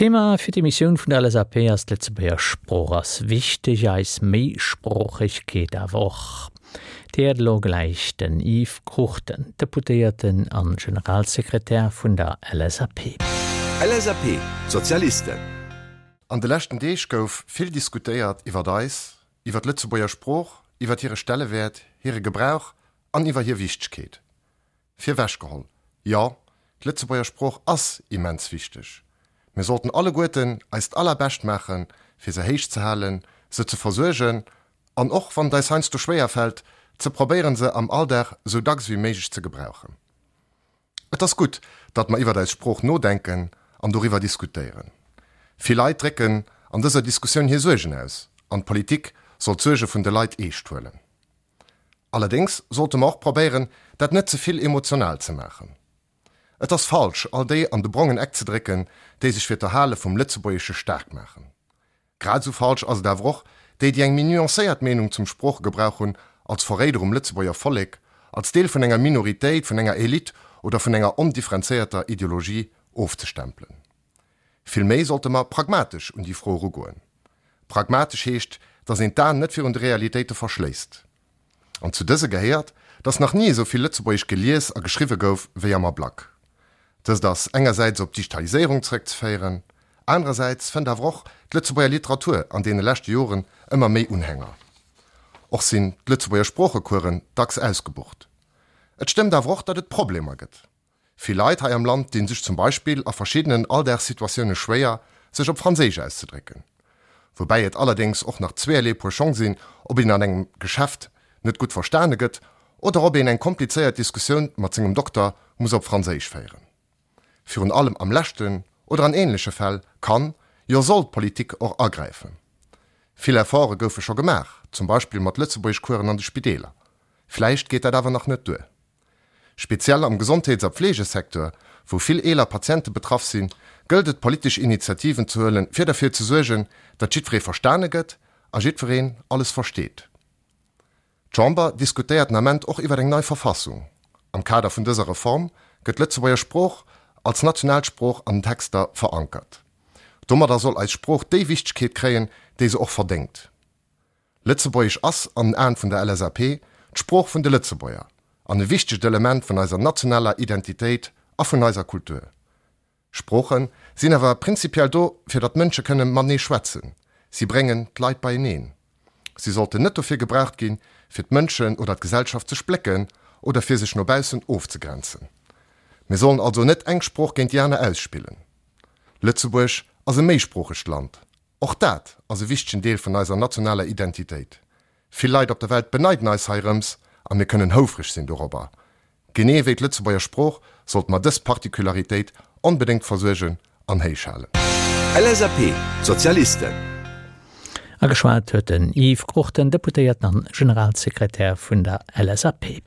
D'Thema fir d'Emissioun vun der LSAP ass d'Lëtzebuerger Sprooch ass wichteg, eis Méisproochegkeet awer och. Dir héiert elo gläich den Yves Cruchten, Deputéierten an Generalsekretär vun der LSAP. LSAP, Sozialisten. An de leschten Deeg gouf vill diskutéiert iwwert eis, iwwer d'Lëtzebuerger Sprooch, iwwert hire Stellewäert, hire Gebrauch an iwwer hir Wichtegkeet. Virwechgeholl, jo, d'Lëtzebuerger Sprooch ass immens wichteg. Mir sollten alleguerten eist Allerbescht maachen, fir se héich ze halen, se ze versuergen an och, wann et eis heiansdo schwéier fält, ze probéieren, se am Alldag esou dacks ewéi méiglech ze gebrauchen. Et ass gutt, datt mer iwwert eis Sprooch nodenken an doriwwer diskutéieren. Vill Leit drécken an dëser Diskussioun hir Suergen aus an d'Politik soll d'Suerge vun de Leit eescht huelen. Allerdéngs sollte mer och probéieren, dat net ze vill emotional ze maachen. Et ass falsch, all déi an de brongen Eck ze drécken, déi sech fir d'Erhale vum Lëtzebuergesche staark maachen. Grad esou falsch ass et awer och, déi, déi eng méi nuancéiert Meenung zum Sproochegebrauch hunn, als Verréider um Lëtzebuerger Vollek, als Deel vun enger Minoritéit, vun enger Elite oder vun enger ondifferenzéierter Ideologie ofzestempelen. Vill méi sollte mer pragmatesch un déi Fro erugoen. Pragmatesch heescht, datt een d'Aen net virun de Realitéite verschléisst. An zu dëse gehéiert, datt nach ni esou vill Lëtzebuergesch gelies a geschriwwe gouf wéi am Ablack. Dëst ass engersäits op d'Digitaliséierung zeréckzeféieren, anerersäits fënnt awer och d'Lëtzebuerger Literatur an deene leschte Joren ëmmer méi Unhänger. Och sinn d'Lëtzebuerger Sproochecoursen dacks ausgebucht. Et stëmmt awer och, datt et Problemer gëtt. Vill Leit hei am Land dinn sech zum Beispill a verschiddenen Alldagssituatioune schwéier, sech op Franséisch auszedrécken. Woubäi et allerdéngs och nach zweeërlee Puer Schong sinn, ob een an engem Geschäft net gutt verstane gëtt oder ob een eng komplizéiert Diskussioun mat sengem Dokter muss op Franséisch féieren. Virun allem am leschten oder an änleche Fäll kann, jo soll d'Politik och agräifen. Vill Efforte goufe scho gemaach, zum Beispill mat Lëtzebuergeschcoursen an de Spideeler. Vläicht geet dat awer nach net duer. Speziell am Gesondheets a Pflegesecteur, wou vill eeler Patiente betraff sinn, gëllt et politesch Initiativen ze huelen, fir derfir ze suergen, datt jiddweree verstane gëtt a jiddwereen alles versteet. D'Chamber diskutéiert den Ament och iwwer eng nei Verfassung. Am Kader vun dëser Reform gëtt d'Lëtzebuerger Sprooch als national Sprooch an den Texter verankert. Domadder soll eis Sprooch déi Wichtegkeet kréien, déi se och verdéngt. Lëtzebuergesch ass, an den Aen vun der LSAP, d'Sprooch vun de Lëtzebuerger an e wichtegt Element vun eiser nationaler Identitéit a vun eiser Kultur. Sprooche sinn awer prinzipiell do, fir datt Mënsche kënne matenee schwätzen. Si bréngen d'Leit beieneen. Si sollten net dofir gebraucht ginn, fir d'Mënschen oder d'Gesellschaft ze splécken oder fir sech no baussen ofzegrenzen. Mir sollen also net eng Sprooch géint déi aner ausspillen. Lëtzebuerg ass e méisproochegt Land. Och dat ass e wichtegen Deel vun eiser nationaler Identitéit. Vill Leit op der Welt beneiden eis heirëms a mir kënnen houfreg sinn dorobber. Genee wéi d'Lëtzebuerger Sprooch sollte mer dës Particularitéit onbedéngt versuergen an héich halen. LSAP, D'Sozialisten. A geschwat huet den Yves Cruchten, Deputéierten an Generalsekretär vun der LSAP.